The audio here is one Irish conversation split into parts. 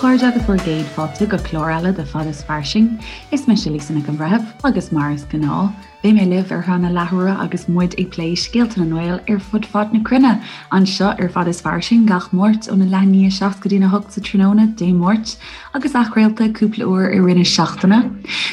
chairde agus bhur gcéad fáilte go clár eile de Fad is Fairsing. Is mise Lisa Nic an Bhreithimh agus mar is gnáth, beidh mé libh ar feadh na leathuaire agus muid ag plé scéalta na nGael ar fud fad na cruinne, anseo ar Fad is Fairsing gach Máirt óna leath i ndiaidh a 7 go dtína 8 sa tráthnóna, Dé Máirt, agus athchraolta cúpla uair i rith na seachtaine.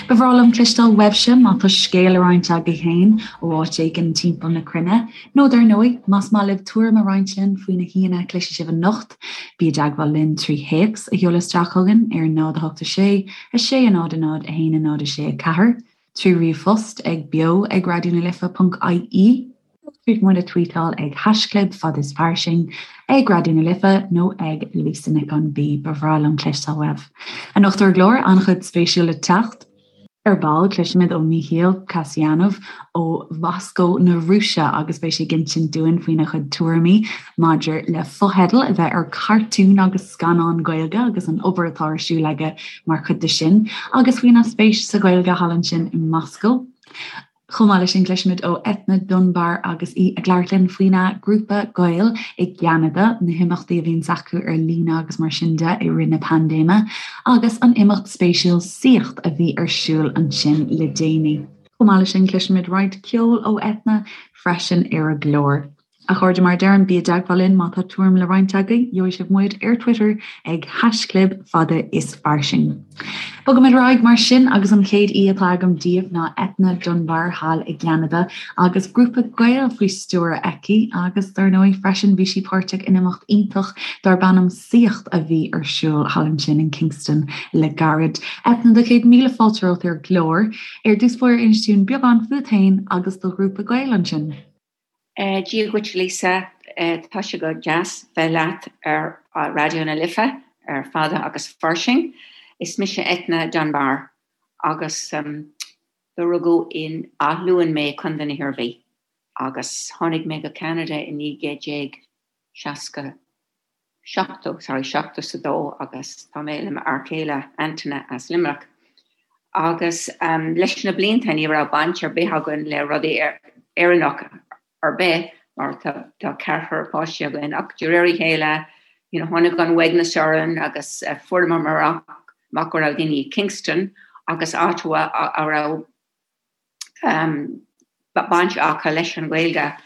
Ba bhreá liom cloisteáil uaibhse má tá scéal le roinnt agaibh féin ó áit éigin timpeall na cruinne, nó dar ndóigh, más maith libh tuairim a roinnt linn faoi na haíonna a chloisfidh sibh anocht, bí i dteagmháil linn trí théacs a sheoladh isteach chugainn ar 0 8 6 6 0 0 1 0 6 4, trí ríomhphost ag beo ag raidió na life ponc ie, nó tríd muid a tweetáil ag haischlib fad is fairsing, ag Raidió na Life nó ag Lisa Nic an B. Ba bhreá liom cloisteáil uaibh. Anocht ar an gclár, an-chuid spéisiúil le teacht. Ar ball, cloisfimid ó Mícheál Kasyanov ó Mhoscó na Rúise agus beidh sé ag insint dúinn faoina chuid tuairimí maidir le fotheidil a bheith ar cartúin agus scannáin Gaeilge agus an obair atá ar siúl aige mar chuid de sin agus faoina spéis sa Ghaeilge thall ansin i Moscó. Chomh maith leis sin, cloisfimid ó Eithne Dunbar agus í ag labhairt linn faoina grúpa Gael i gCeanada, na himeachtaí a bhíonns acu ar líne agus mar sin de i rith na paindéime, agus an imeacht spéisiúil Saíocht a bhí ar siúl ansin le déanaí. Chomh maith leis sin, cloisfimid roinnt ceoil ó Eithne freisin ar an gclár. A chairde, mar a deirim, bí i dteagmháil linn má tá tuairim le roinnt agaibh. Gheobhaidh sibh muid ar Twitter ag haischlib fada is fairsing. Bogaimid ar aghaidh mar sin agus an chéad aoi atá agam daoibh ná Eithne Dunbar thall i gCeanada agus grúpa Gael faoi stiúir aici agus dar ndóigh freisin bhí sí páirteach in imeacht iontach darb ainm Saíocht a bhí ar siúl thall ansin in Kingston le gairid. Eithne, do chéad míle fáilte romhat ar an gclár. Ar dtús báire inis dúinn beagán fút féin agus do ghrúpa Gael ansin. Dia dhuit Lisa, tá sé go deas bheith leat ar Raidió na Life ar Fada agus Fairsing. Is mise Eithne Dunbar agus do rugadh in Áth Luain mé, Contae na hIarmhí, agus tháinig mé go Ceanada i 1960. 70, sorry, 72 agus tá mé le m'fhear céile Antaine as Luimneach. Agus leis na blianta ní raibh baint ar bith againn le rudaí Éireannach ar bith mar tá ceathrar páistí againn ach de réir a chéile you know, tháinig an uaigneas orainn agus fuaireamar amach go raibh daoine i Kingston agus Ottawa a raibh baint acu leis an Ghaeilge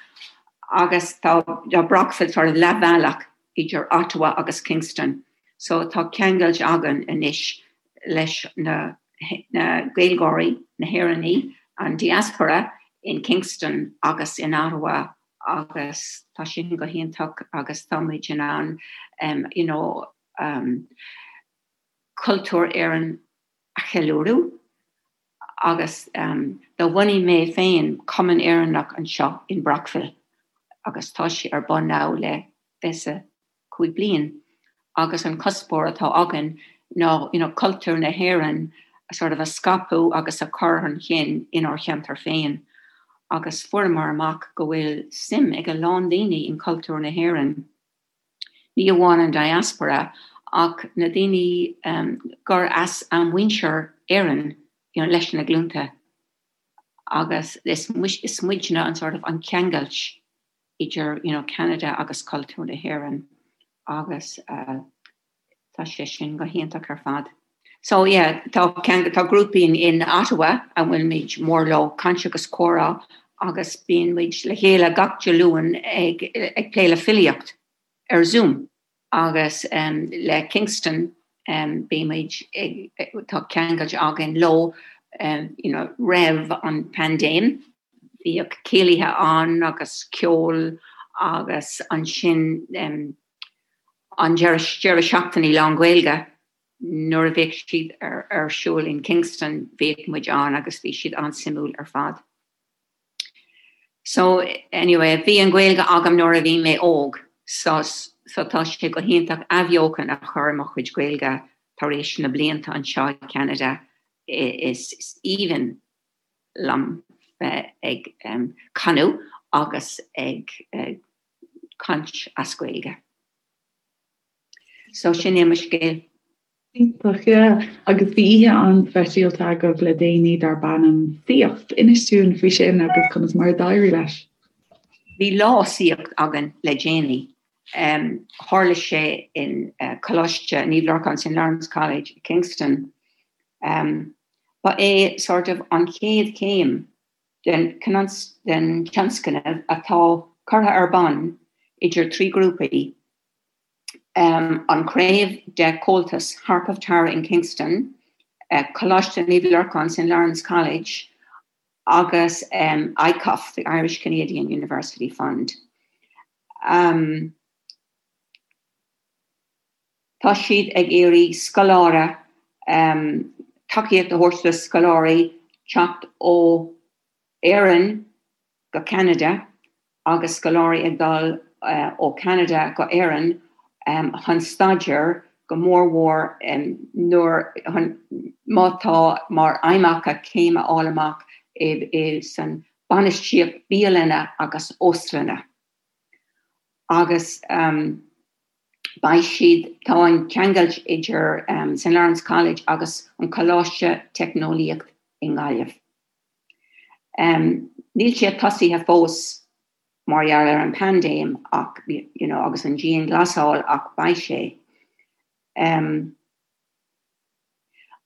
agus tá Brockville sort of leathbhealach idir Ottawa agus Kingston so tá ceangailt againn anois leis na na Gaeilgeoirí, na hÉireannaigh, an diaspora in Kingston agus in Ottawa agus tá sin go hiontach agus tá muid in ann you know cultúr Éireann a cheiliúradh. Agus do bhunaigh mé féin Cumann Éireannach anseo in Brockville agus tá sé ar bun now le 25 bliain agus an cuspóir atá againn ná you know cultúr na hÉireann a sort of a scaipeadh agus a chur chun cinn inár cheantar féin agus fuaireamar amach go bhfuil suim ag a lán daoine in cultúr na hÉireann. Ní amháin an diaspora ach na daoine gur as a muintir Éireann you know leis na glúnta agus is is muidne an sort of an ceangailt idir you know Canada agus cultúr na hÉireann agus Tá sé sin go hiontach ar fad. So yeah, tá tá grúpaí in in Ottawa a bhfuil muid mór leo, caint agus comhrá agus bíonn muid le chéile gach Dé Luain ag ag plé le filíocht ar Zoom agus um, le Kingston um, bíonn muid ag tá ceangailt againn leo um, you know, roimh an paindéim. Bhíodh céilithe ann agus ceol agus ansin um, an deireadh seachtaine lán-Ghaeilge nuair a bhíodh siad ar siúl in Kingston bhíodh muid ann agus bhí siad an-suimiúil ar fad. So anyway bhí an Ghaeilge agam nuair a bhí mé óg so so tá sé go hiontach athbheochan a chur i mo chuid Gaeilge tar éis na blianta anseo i Canada is aoibhinn liom bheith ag canadh agus ag caint as Gaeilge. So sin é mo scéal. Iontach, yeah. Agus bhí oíche an-speisialta agaibh le déanaí darb ainm Saíocht. Inis dúinn faoi sin agus conas mar a d'éirigh leis. Bhí lá saíocht againn le déanaí. Tharla sé in Coláiste Naomh Lorcán, St Lawrence College, Kingston. Ba é sort of an chéad chéim den tionscnamh atá curtha ar bun idir 3 grúpaí, an chraobh de Comhaltas Harp of Tara in Kingston, Coláiste Naomh Lorcán, St Lawrence College, agus ICUF, the Irish Canadian University Fund. Tá siad ag iarraidh scoláire, tacaíocht a thabhairt do scoláirí teacht ó Éirinn go Ceanada agus scoláirí ag dul ó Cheanada go Éirinn chun staidéar, go mór mhór nuair, má tá mar aidhm acu céim a fháil amach i san bainistíocht bialanna agus óstlanna. Agus beidh siad, tá an ceangailt idir St Lawrence College agus an Coláiste Teicneolaíocht i nGaillimh. Níl sé tosaithe fós mar gheall ar an paindéim ach, you know, agus an dianghlasáil ach beidh sé.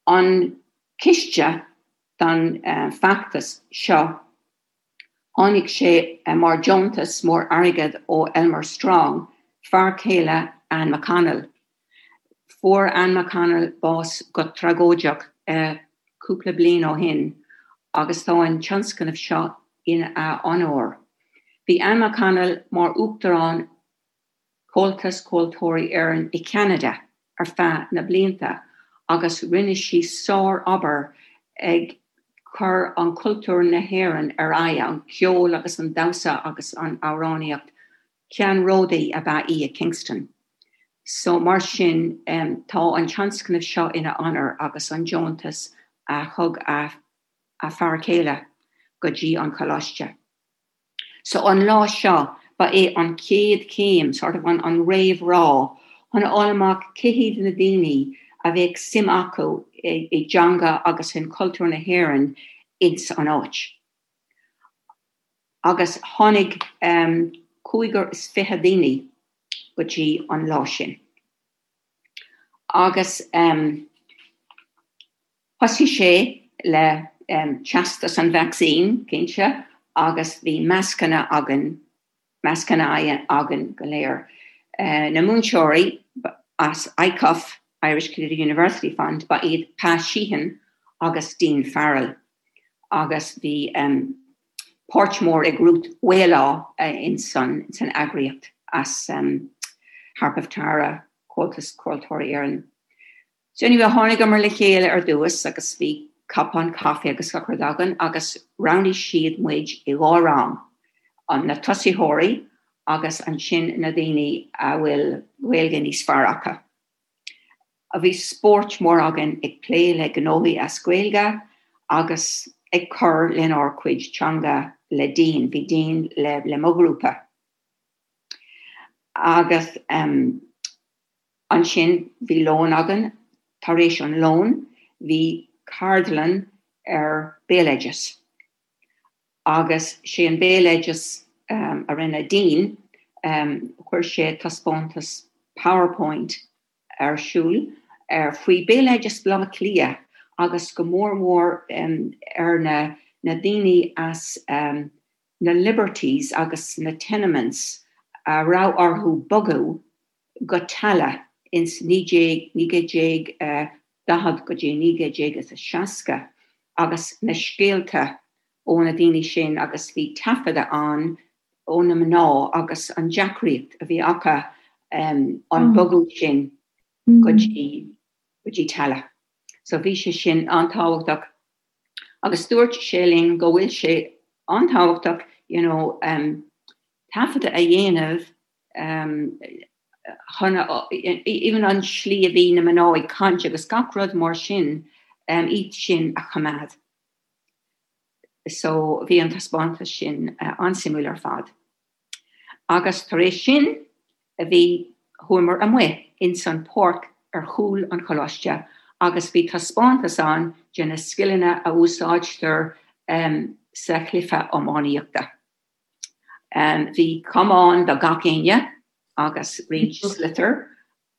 An ciste don feachtas seo, tháinig sé mar deontas mór airgead ó Elmer Strong, fear céile Anne McConnell. Fuair Anne McConnell bás go tragóideach cúpla bliain ó shin agus tá an tionscnamh seo ina onóir. Bhí Anne McConnell mar Uachtarán Chomhaltas Ceoltóirí Éireann i Ceanada ar feadh na blianta agus rinne sí sár-obair ag cur an cultúr na hÉireann ar aghaidh, an ceol agus an damhsa agus an amhránaíocht. Ceannródaí ab ea í i Kingston. So mar sin tá an tionscnamh seo ina onóir agus an deontas a thug a a fear céile go dtí an choláiste. So an lá seo ba é an chéad chéim, sort of an an réamhrá chun a fháil amach cé hiad na daoine a bheadh suim acu i dteanga agus in cultúr na hÉireann ins an áit. Agus tháinig 25 daoine go dtí an lá sin. Agus thosaigh sé le teastas an vacsaín, cinnte, agus bhí mascanna againn, mascanna aghaidhe againn go léir. Na múinteoirí as ICUF, Irish Canadian University Fund, ba iad Pa Sheehan agus Dean Farrell. Agus bhí páirt mór ag Ruth Waolaw in san eagraíocht as Harp of Tara, Comhaltas Ceoltóirí Éireann. So anyway, tháinigeamar le chéile ar dtús agus bhí cupán caife agus gach rud againn agus roghnaigh siad muid i dhá rang, an na tosaitheoirí agus ansin na daoine a bhfuil Gaeilge níos fearr acu. Bhí spóirt mór againn ag plé le gnóthaí as Gaeilge agus ag cur lenár cuid teanga le Dean, bhí Dean le le mo ghrúpa. Agus um, Ansin bhí lón againn. Tar éis an lóin bhí ceardlann ar béaloideas. Agus sé an béaloideas a rinne Dean, chuir sé taispeántas PowerPoint ar siúl ar faoi béaloideas Bhaile Átha Cliath agus go mór mhór ar na na daoine as na Liberties agus na tenements a raibh orthu bogadh go Tallaght ins 1940 go dtí 1960 agus na scéalta ó na daoine sin agus bhí taifeadadh ann ó na mná agus an deacraíocht a bhí acu an bogadh sin go dtí go dtí Tallaght. So bhí sé sin an-tábhachtach agus dúirt sé linn go bhfuil sé an-tábhachtach you know taifeadadh a dhéanamh chun even an slí a bhí na mná ag caint agus gach rud mar sin, iad sin a choimeád. So bhí an taispeántas sin an-suimiúil ar fad. Agus tar éis sin bhí, chuamar amuigh ins an páirc ar chúl an choláiste agus bhí taispeántas ann de na scileanna a úsáidtear sa chluiche iománaíochta. Bhí camán do gach éinne. agus roinnt sliotar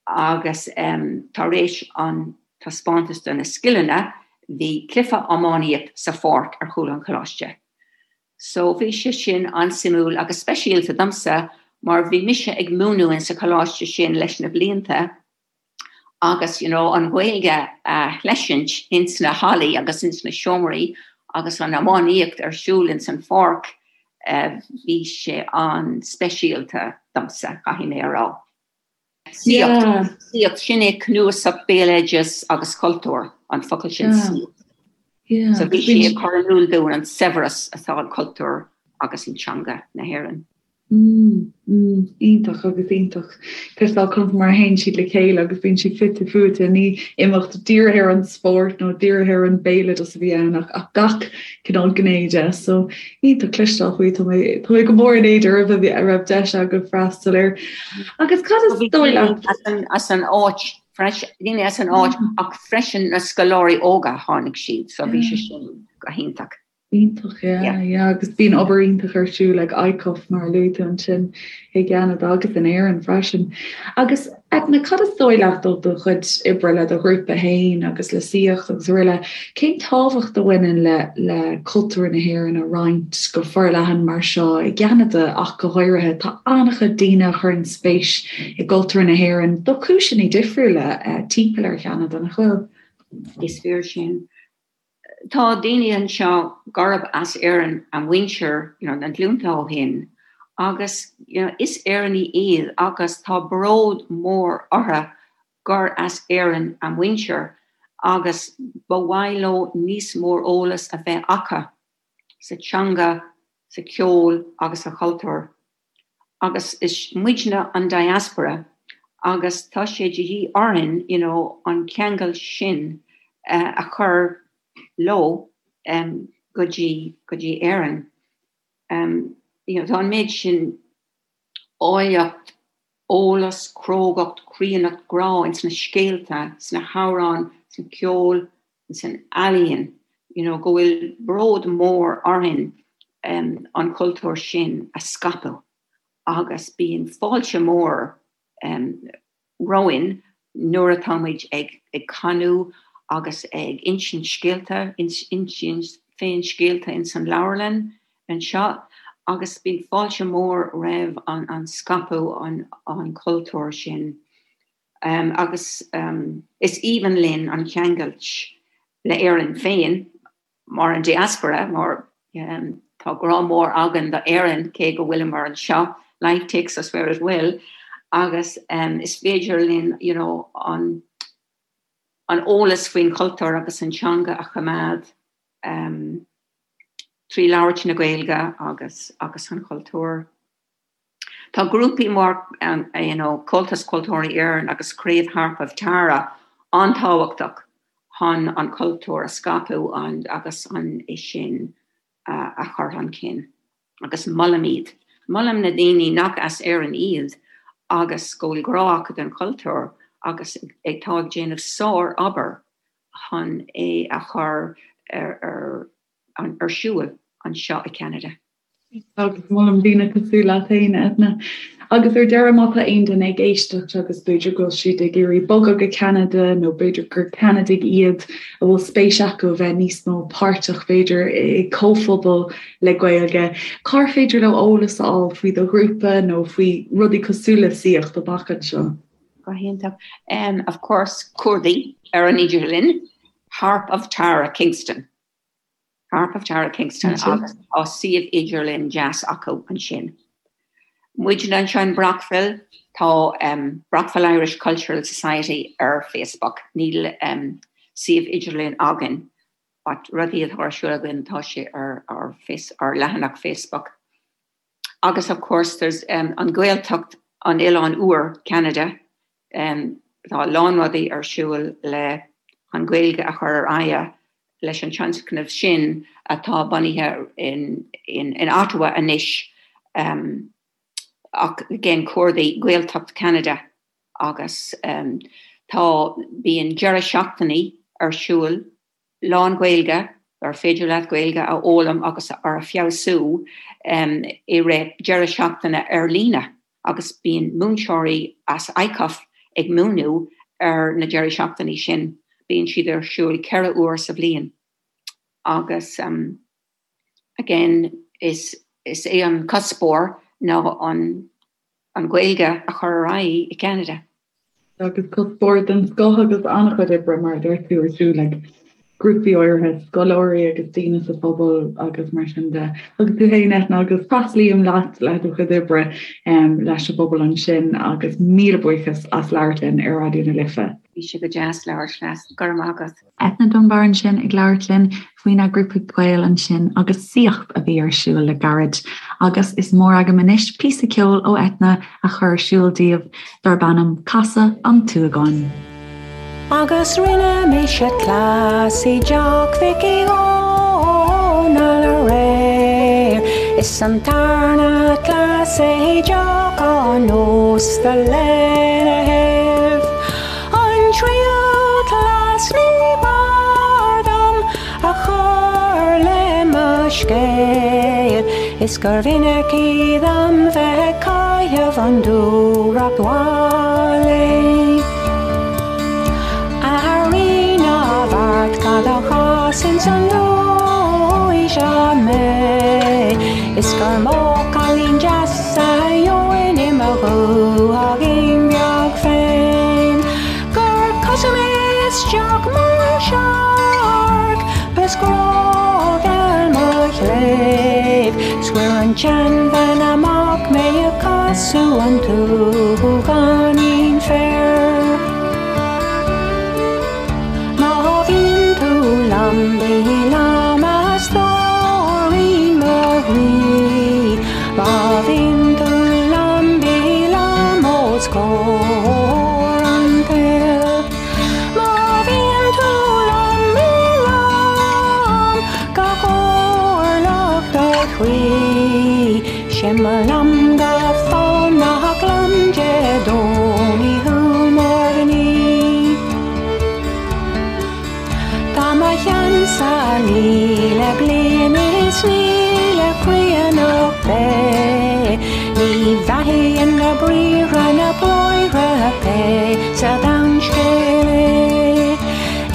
agus tar éis an taispeántas de na scileanna bhí cluiche iománaíocht sa pháirc ar chúl an choláiste. So bhí sé sin an-suimiúil agus speisialta domsa mar bhí mise ag múineadh in sa choláiste sin leis na blianta agus you know an Ghaeilge a chleisint ins na hallaí agus ins na seomraí agus an iománaíocht ar siúl ins an pháirc bhí sé an-speisialta domsa, caithfidh mé a rá. Saíocht, saíocht, sin é cnuasach béaloideas agus cultúr, an focal sin saíocht. So bhí sí ag cur in iúl dúinn an saibhreas atá in cultúr agus in teanga na hÉireann. Mm, mm, iontach agus iontach. Cloisteáil conas mar a théann siad le chéile agus bíonn siad fite fuaite, ní imeacht dírithe ar an spórt nó dírithe ar an béaloideas a bhí ann ach, ach gach cineál gné de. So iontach cloisteáil faoi, tá mé, tá mé go mór in éad oraibh a bhí, a raibh deis agaibh freastal air. Agus cad is dóigh leat? As an áit freisin, daoine as an áit ach freisin na scoláirí óga tháinig siad, so bhí sé sin go hiontach. Iontach, yeah, yeah, agus bíonn obair iontach ar siúl ag ICUF mar a luaigh tú ansin i gCeanada agus in Éirinn freisin. Agus Edna, cad is dóigh leat ó do chuid oibre le do ghrúpa féin agus le Saíocht agus araile, cén tábhacht a bhaineann le le cultúr na hÉireann a roinnt go forleathan mar seo i gCeanada ach go háirithe? Tá an-chuid daoine a chuireann spéis i gcultúr na hÉireann do chúiseanna difriúla timpeall ar Cheanada, nach bhfuil? Is fíor sin. Tá daoine anseo gurb as Éirinn a muintir you know, na glúnta ó shin agus you know, is Éireannaigh iad agus tá bród mór orthu gur as Éirinn a muintir agus ba mhaith leo níos mór eolas a bheith acu sa teanga, sa cheol agus sa chultúr. Agus is muidne an diaspora agus tá sé de dhíth orainn you know an ceangal sin a chur leo go dtí go dtí Éirinn. You know tá an méid sin áilleacht, eolas, crógacht, críonnacht, grá ins na scéalta, sna hamhráin, sa cheol, san ealaíon, you know, go bhfuil bród mór orainn an cultúr sin a scaipeadh agus bíonn fáilte mór romhainn nuair atá muid ag ag canadh agus ag insint scéalta, insint féin scéalta ins an leabharlann anseo agus bíonn fáilte mór roimh an an scaipeadh an an cultúr sin. Agus is aoibhinn linn an cheangailt le Éirinn féin, mar an diaspora, mar tá grá mór againn do Éirinn, cé go bhfuileamar anseo, life takes us where it will, agus is féidir linn you know an an eolas faoin chultúr agus an teanga a choimeád trí labhairt na Gaeilge agus agus an chultúr. Tá grúpaí mar you know Comhaltas Ceoltóirí Éireann agus Craobh Harp of Tara an-tábhachtach chun an cultúr a scaipeadh agus an é sin a chur chun cinn. Agus molaim iad. Molaim na daoine nach as Éirinn iad agus go bhfuil grá acu don chultúr agus atá ag déanamh sár-obair chun é a chur ar ar siúl anseo i Ceanada. Agus molaim daoine cosúil leat féin, Edna. Agus ar deireadh, má tá aon duine ag éisteacht agus b'fhéidir go bhfuil siad ag iarraidh bogadh go Ceanada nó b'fhéidir gur Ceanadaigh iad a bhfuil spéis acu a bheith níos mó páirteach b'fhéidir i comhphobal le Gaeilge, cár féidir leo eolas a fháil faoi do ghrúpa nó faoi rudaí cosúil le Saíocht amach anseo? Go hiontach. Of course, cuardaigh ar an idirlíon, Harp of Tara, Kingston. Harp of Tara Kingston agus tá suíomh idirlín deas acu ansin. Muidne anseo in Brockville, tá Brockville Irish Cultural Society ar Facebook. Níl suíomh idirlín againn but rudaí atá ar siúl againn tá sé ar ár ár leathanach Facebook. Agus of course there's an Ghaeltacht an Oileáin Úir, Ceanada, Tá a lán rudaí ar siúl le an Ghaeilge a chur ar aghaidh leis an tionscnamh sin atá bunaithe in Ottawa anois ach again cuardaigh Gaeltacht Cheanada agus tá bíonn deireadh seachtainí ar siúl lán-Ghaeilge ar féidir leat Gaeilge a fhoghlaim agus a feabhsú i rith deireadh seachtaine ar líne. agus bíonn múinteoirí as ICUF ag múineadh ar na deirí seachtainí sin. Bíonn siad ar siúl 4 uair sa bhliain agus again is is é an cuspóir ná an an Ghaeilge a chur ar aghaidh i gCeanada. Agus cuspóir den scoth agus an-chuid oibre, mar a deir tú, ar siúl ag grúpaí áirithe scoláirí agus daoine sa phobal agus mar sin de. Agus tú féin, Eithne, agus tréaslaím leat le do chuid oibre leis an bpobal ansin agus míle buíochas as labhairt linn ar Raidió na Life. Bhí sé go deas labhairt leat. Go raibh maith agat. Eithne Dunbar ansin ag labhairt linn faoina grúpa Gael ansin agus saíocht a bhí ar siúl le gairid. Agus is mór agam anois píosa ceoil ó Eithne a chur ar siúl daoibh darb ainm Casadh an tSúgáin. Agus rinne mise cleas i dteach Mhic Uí Dhónaill aréir Is an tarna cleas é i dteach an ósta lena thaobh. An tríú cleas ní b'fhearr dom a chur le mo scéal Is gur mhinic í dom bheith ag caitheamh an dúthracht mhaith léi. A Rí na bhFeart cad a chas ins an dóigh seo mé Is gur mó cailín deas a gheobhainn i mo dhúthaigín bheag féin Gur casadh mé isteach mar shark 's grá-gheal mo chléibh 'S chuir an tseanbhean amach mé ag casadh an tsúgáinín féir. Má bhíonn tú liom bí liom a stóirín mo chroí Má bhíonn tú liom bí liom os comhair an tsaoil Má bhíonn tú liom bí liom go comhairleach do chroí 'Sé mo liom go fánach liom Dé Domhnaigh thú mar ghní. Tá mo cheannsa 1,000 bliain is 1,000 caonach é. Ní bheathaíonn na briathra na bráithre pé sa domhan scéal é.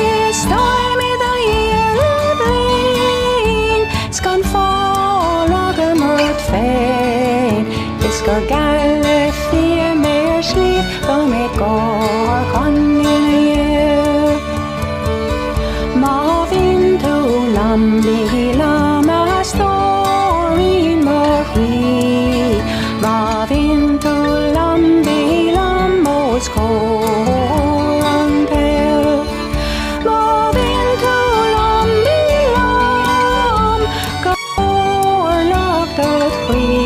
Is táim i do dhiaidh le bliain 's gan fáil agam ort féin. Is gur geall le fia mé ar sliabh go mbeidh gáir chun ina dhiaidh. Má bhíonn tú liom bí liom a stóirín mo chroí. Má bhíonn tú liom bí liom os comhair an tsaoil. Má bhíonn tú liom bí liom go comhairleach dod chroí.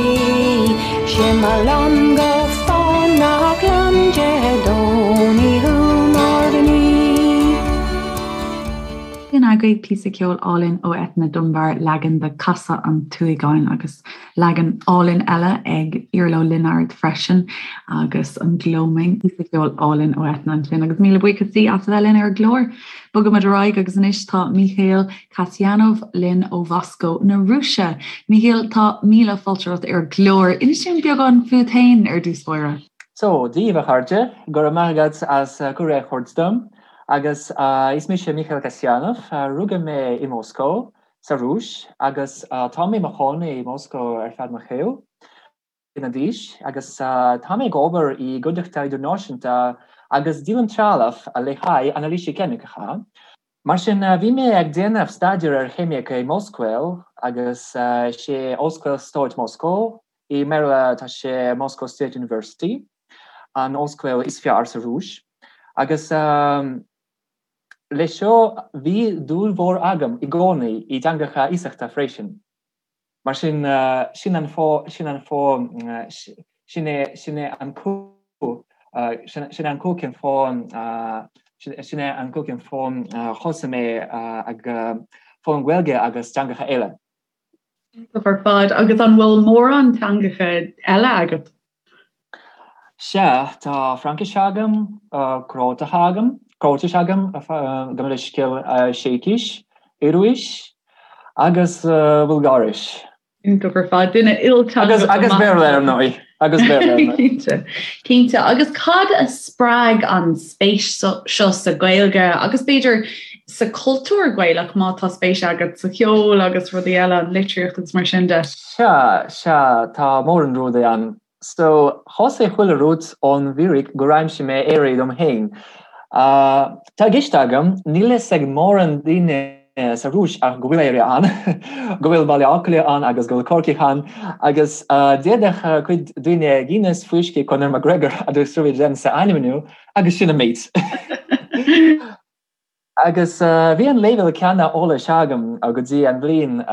'Sé mo liom go fánach liom Dé Domhnaigh thú mar ghní. Sin agaibh píosa ceoil álainn ó Eithne Dunbar, leagan de Casadh an tSúgáin agus leagan álainn eile ag Iarla Ó Lionáird freisin agus an Gloaming, píosa ceoil álainn ó Eithne ansin agus míle buíochas di as a bheith linn ar an gclár. Bogaimid ar aghaidh agus anois tá Míchéal Kasyanov linn ó Mhoscó na Rúise. Míchéal, tá míle fáilte romhat ar an gclár. Inis dúinn beagán fút féin ar dtús báire. So, Dia daoibh a chairde, go raibh maith agat as cuireadh a thabhairt dom. Agus is mise Míchéal Kasyanov, rugadh mé i Moscó, sa Rúis, agus tá mé i mo chónaí i Moscó ar feadh mo shaoil. bliana d'aois agus tá mé ag obair i gcuideachta idirnáisiúnta agus díolaim trealamh le haghaidh anailísí ceimiceacha. Mar sin, bhí mé ag déanamh staidéar ar cheimic i m'ollscoil agus sé Ollscoil Stáit Moscó, i mBéarla tá sé Moscow State University, an ollscoil is fearr sa Rúis. Agus le seo bhí dúil mhór agam i gcónaí i dteangacha iasachta freisin. Mar sin, sin an fáth, sin an fáth, sin é, sin é an cú, sin é an cú cén fáth, sin é an cú cén fáth thosaigh mé ag foghlaim Gaeilge agus teangacha eile. Iontach ar fad. Agus an bhfuil mórán teangacha eile agat? Sea, tá Fraincis agam, Crótach agam, Cróitis agam, gabh mo leithscéal, Seicis, Ioruais agus Bulgáiris. Iontach ar fad, duine ilteangach. Agus Béarla ar ndóigh. Agus Béarla. Cinnte. Cinnte. Agus cad a spreag an spéis seo sa Ghaeilge agus b'fhéidir sa chultúr Gaelach má tá spéis agat sa cheol agus rudaí eile, an litríocht agus mar sin de? Sea, sea, tá mórán rudaí ann. So, thosaigh chuile rud ón bhfíric gur aimsigh mé Éire dom féin. Tá i gceist agam, níl fhios ag mórán daoine sa Rúis ach go bhfuil Éire ann, go bhfuil Baile Átha Cliath ann agus go bhfuil Corcaigh ann, agus d'fhéadfadh cuid daoine Guinness, fuiscí, Conor McGregor agus Eurovision a ainmniú agus sin an méid. Agus bhí an leibhéal céanna eolais agam go dtí an bhliain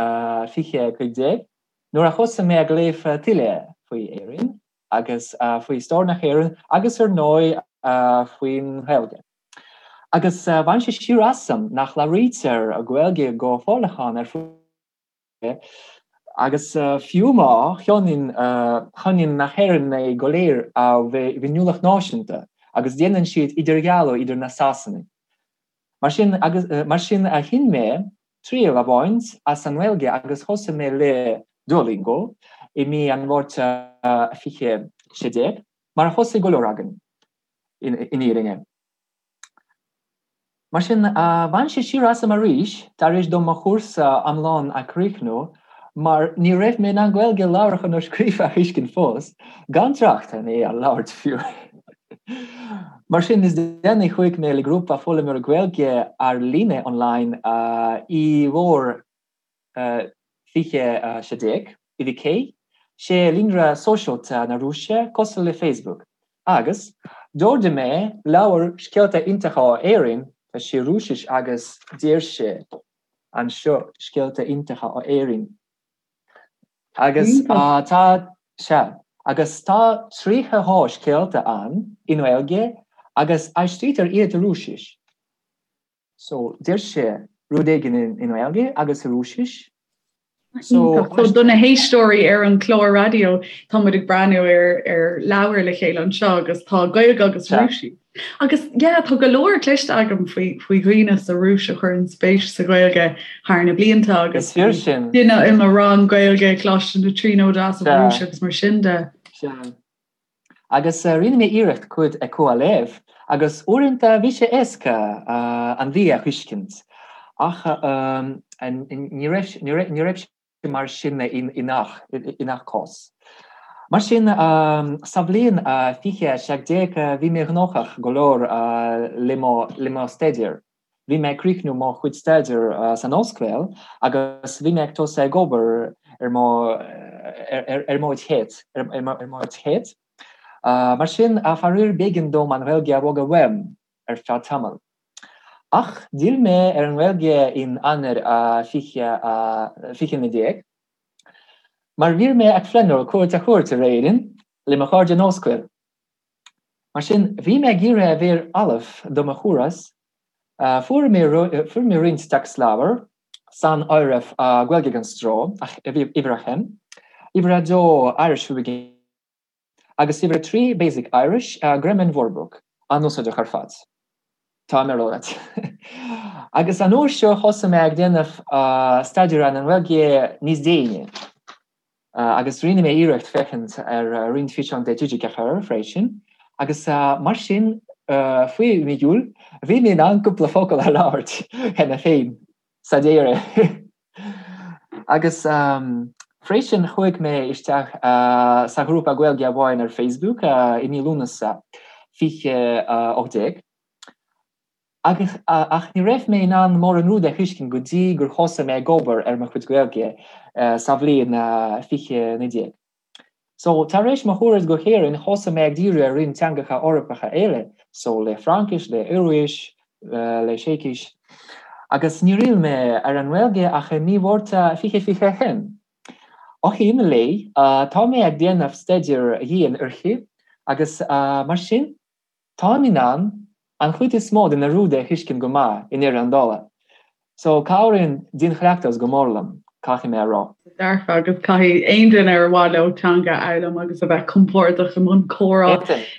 2015, nuair a thosaigh mé ag léamh tuilleadh faoi Éirinn agus faoi stair na hÉireann agus ar ndóigh faoin nGaeilge. Agus bhain sé siar asam nach labhraítear Gaeilge go forleathan ar fud Agus fiú má cháineann na hÉireannaigh go léir a bhféiniúlacht náisiúnta agus déanann siad idirdhealú idir na Sasanaigh. Mar sin, mar sin chinn mé triail a bhaint as an nGaeilge agus thosaigh mé le Duolingo i mí an Mhárta 2016, mar a thosaigh go leor againn, in fhírinne. Mar sin, bhain sé siar asam arís tar éis dom mo chúrsa iomlán a chríochnú mar ní raibh mé in ann Gaeilge labhartha nó scríofa a thuiscint fós, gan trácht ar é a labhairt fiú. Mar sin, níos déanaí chuaigh mé le grúpa foghlaimeoirí Gaeilge ar líne online i bhfómhar 2016, i VK, sé líonra sóisialta na Rúise cosúil le Facebook, agus d'ordaigh mé leabhar Scéalta Iontacha ó Éirinn, tá sé Rúisis agus deir sé anseo Scéalta Iontacha ó Éirinn. Agus tá, sea, agus tá 32 scéalta ann i nGaeilge agus aistrítear iad i Rúisis. So, deir sé rud éigin i nGaeilge agus i Rúisis. So, so do na héisteoirí ar an chlár raidió, tá muid ag breathnú ar ar leabhar le chéile anseo agus tá Gaeilge agus Rúisis. Agus yeah, tá go leor cloiste agam faoi faoi dhaoine sa Rúis a chuireann spéis sa Ghaeilge thar na blianta agus duine i mo rang Gaeilge Coláiste na Tríonóide as an Rúis agus mar sin de. Agus rinne mé iarracht cuid acu a léamh, agus uaireanta bhí sé éasca an bhrí a thuiscint, ach ní raibh sé mar sin i ngach cás. Mar sin, sa bhliain 2017 bhí mé gnóthach go leor le mo staidéar. Bhí mé ag críochnú mo chuid staidéir san ollscoil agus bhí mé ag tosú ag obair ar mo ar mo chéad ar mo chéad. Mar sin, faraor b'éigean dom an Ghaeilge a fhágáil uaim ar feadh tamaill. Ach d'fhill mé ar an nGaeilge in Eanáir 2019 mar bhí mé ag pleanáil cuairt a thabhairt ar Éirinn le mo chairde in ollscoil. Mar sin, bhí mé ag iarraidh a bheith ullamh do mo thuras. Fuair mé roinnt téacsleabhar, san áireamh Gaeilge gan Stró, uimhir a haon, uimhir a dó Irish for Beginners agus uimhir a 3 Basic Irish, Grammar and Wordbook, an-úsáideach ar fad, tá mé a rá leat. Agus an uair seo thosaigh mé ag déanamh staidéar ar an nGaeilge níos déine. Agus rinne mé iarracht féachaint ar roinnt físeán de TG4 freisin, agus mar sin, faoi mhí Iúil, bhí mé in ann cúpla focal a labhairt cheana féin, sa deireadh! Agus freisin, chuaigh mé isteach sa ghrúpa Gaeilge amháin ar Facebook i mí Lúnasa 2018. Agus, ach ní raibh mé in ann mórán rud a thuiscint go dtí gur thosaigh mé ag obair ar mo chuid Gaeilge sa bhliain 2019. So, tar éis mo thuras go hÉirinn, thosaigh mé ag díriú ar roinnt teangacha Eorpacha eile, so le Fraincis, le Ioruais, le Seicis. Agus níor fhill mé ar an nGaeilge ach i mí Mhárta 2021. Ó shin i leith, tá mé ag déanamh staidéir dhian uirthi agus mar sin, Táim in ann an chuid is mó de na rudaí a thuiscint go maith i ndeireadh an dála. So cabhraíonn dianchleachtas go mór liom, caithfidh mé a rá. Dearfa agus caithfidh aon duine ar mhaith leo teanga a fhoghlaim agus a bheith compordach i mbun comhrá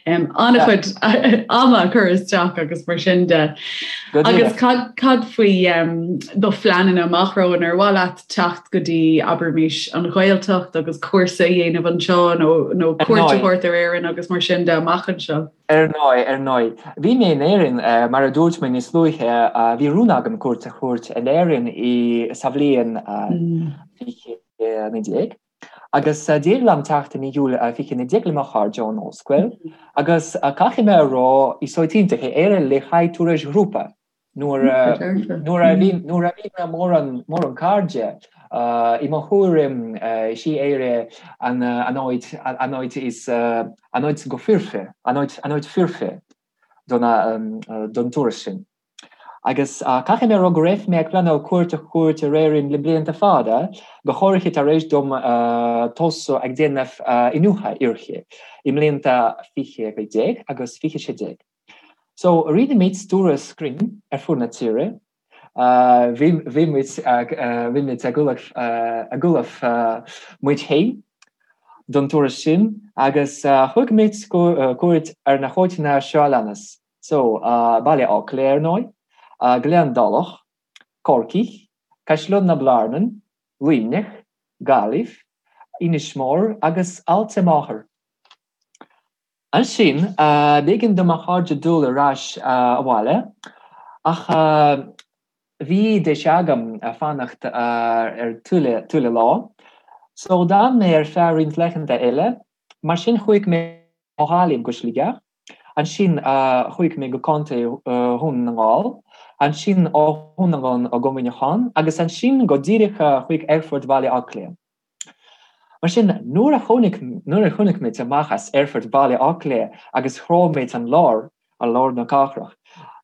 an-chuid ama a chur isteach agus mar sin de. Agus cad faoi do phleananna amach romhainn ar mhaith leat teacht go dtí abraimis an Ghaeltacht agus cúrsa a dhéanamh anseo nó cuairt a thabhairt ar Éirinn agus mar sin de amach anseo? Ar ndóigh, ar ndóigh. Bhí mé in Éirinn, mar a dúirt mé níos luaithe, bhí rún agam cuairt a thabhairt in Éirinn i sa bhliain 2019 agus d'éirigh liom teacht i mí Iúil 2019 le mo chairde ón ollscoil agus caithfidh mé a rá, is áit iontach é Éire le haghaidh turais ghrúpa. Nuair a bhí nuair a bhí mé mórán mórán cairde i mo thuairim is í Éire an an áit an áit is an áit go foirfe an áit an áit foirfe don don turas sin. Agus caithfidh mé a rá go raibh mé ag pleanáil cuairt a thabhairt ar Éirinn le blianta fada, go háirithe tar éis dom tosú ag déanamh iniúchadh uirthi i mblianta 2015 agus 2016. So, rinne muid turas cruinn ar fud na tíre. Bhí bhí muid ag bhí muid ag ullamh ag ullamh muid féin don turas sin agus thug muid cuairt ar na háiteanna seo a leanas. So, Baile Átha Cliath ar ndóigh, Gleann Dálach, Corcaigh, Caisleán na Blarnan, Luimneach, Gaillimh, Inis Mór agus Aillte Máthar. Ansin, b'éigean do mo chairde dul ar ais abhaile, ach bhí deis agam fanacht ar tuilleadh lá. So, d'fhan mé ar feadh roinnt laethanta eile. Mar sin, chuaigh mé ó Ghaillimh go Sligeach, ansin chuaigh mé go Contae Dhún na nGall, ansin ó Dhún na nGall go Muineachán, agus ansin go díreach chuig Aerfort Bhaile Átha Cliath. Mar sin, nuair a tháinig, nuair a tháinig muid amach as Aerfort Bhaile Átha Cliath agus shroich muid an lár, an lár na cathrach,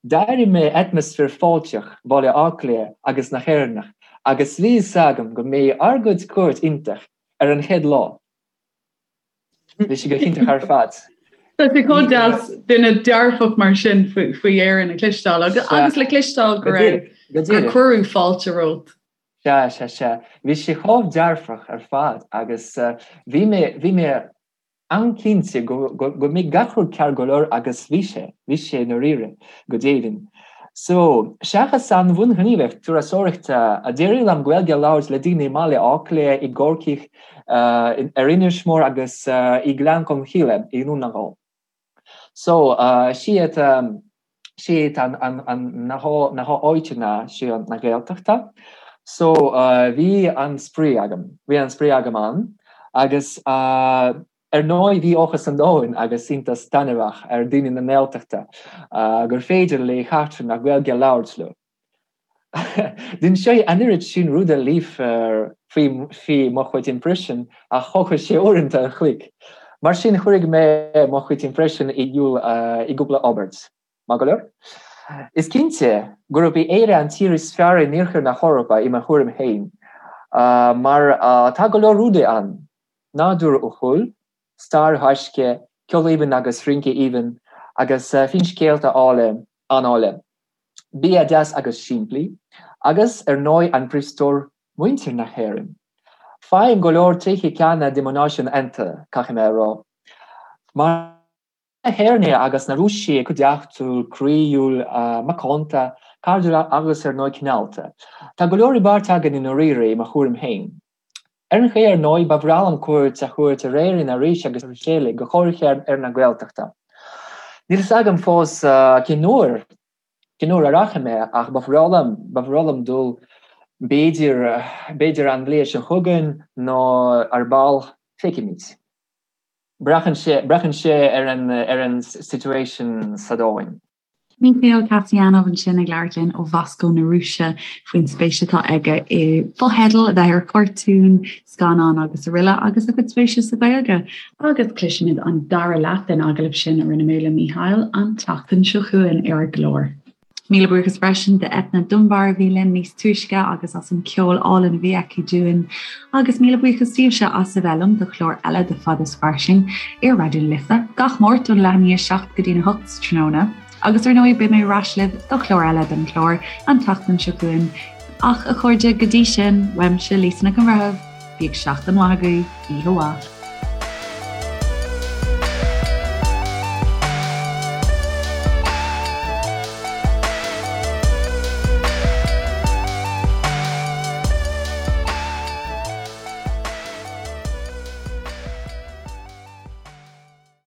d'airigh mé atmaisféar fáilteach Bhaile Átha Cliath agus na hÉireannach agus bhí fhios agam go mbeidh ár gcuid cuairt iontach ar an chéad lá. Bhí sé go hiontach ar fad. Tá sé chomh deas duine dearfach mar sin faoi Éirinn a chloisteáil agus le cloisteáil go raibh, gur cuireadh fáilte romhat. Sea, sea, sea. Bhí sé chomh dearfach ar fad agus bhí mé, bhí mé an-cinnte go, go, go mbeidh gach rud ceart go leor agus bhí sé, bhí sé i ndáiríre, go deimhin. So, seachas an bhunghníomhaíocht turasóireachta, d'éirigh liom Gaeilge a labhairt le daoine i mBaile Átha Cliath, i gCorcaigh, ar Inis Mór agus i nGleann Cholm Cille i nDún na nGall. So, siad, siad an, an, an, na há, na háiteanna seo na Gaeltachta. So, bhí an-spraoi agam, bhí an-spraoi agam ann agus ar ndóigh bhí áthas an domhain agus iontas taitneamhach ar daoine na nGaeltachta gur féidir le heachtrannach Gaeilge a labhairt leo. D'inseoinn an oiread sin rudaí libh faoi mo chuid impression ach thógfadh sé uaireanta an chloig. Mar sin cuirfidh mé mo chuid impression i iúl i gcúpla abairt. Maith go leor? Is cinnte gurb í Éire an tír is fearr in iarthar na hEorpa i mo thuairim féin mar tá go leor rudaí ann, nádúr uathúil, stair ghaisce, ceol aoibhinn agus rince aoibhinn agus finscéalta áille, an-áille. Bia deas agus simplí, agus ar ndóigh an príomhstór, muintir na hÉireann. Faighim go leor tréithe ceanna de mo náisiún iontu, caithfidh mé a rá. Mar na hÉireannaigh agus na Rúisigh cuideachtúil, croíúil, macánta, cairdiúil agus ar ndóigh cineálta. Tá go leor i bpáirt againn i ndáiríre, i mo thuairim féin. Ar an chaoi ar ndóigh, ba bhreá liom cuairt a thabhairt ar Éirinn arís agus arís eile, go háirithe ar na Gaeltachta. Níl fhios agam fós cén uair, cén uair a rachaidh mé ach ba bhreá liom, ba bhreá liom dul b'fhéidir, b'fhéidir an bhliain seo chugainn nó ar ball, feicfimid. Braitheann sé, braitheann sé ar an, ar an situation sa domhain. Mikhail Kasyanov ansin ag labhairt linn ó Mhoscó na Rúise faoin spéis atá aige i bhfotheidil, a bheith ar chartúin, scannáin agus araile agus a chuid spéise sa Ghaeilge. Agus cloisfimid an dara leath den agallamh sin a rinne mé le Michail an tseachtain seo chugainn ar an gclár. Míle buíochas freisin d'Eithne Dunbar a bhí linn níos túisce agus as an ceol álainn a bhí aici dúinn. Agus míle buíochas daoibhse as a bheith liom do chlár eile de Fada is Fairsing ar Raidió na Life gach Máirt ón leath i ndiaidh 7 go dtí'n 8 sa tráthnóna. Agus ar ndóigh beidh mé ar ais libh do chlár eile den chlár an tseachtain seo chugainn. Ach a chairde go dtí sin, uaimse Lisa Nic an Bhreithimh. Bíodh seachtain mhaith agaibh, oíche mhaith.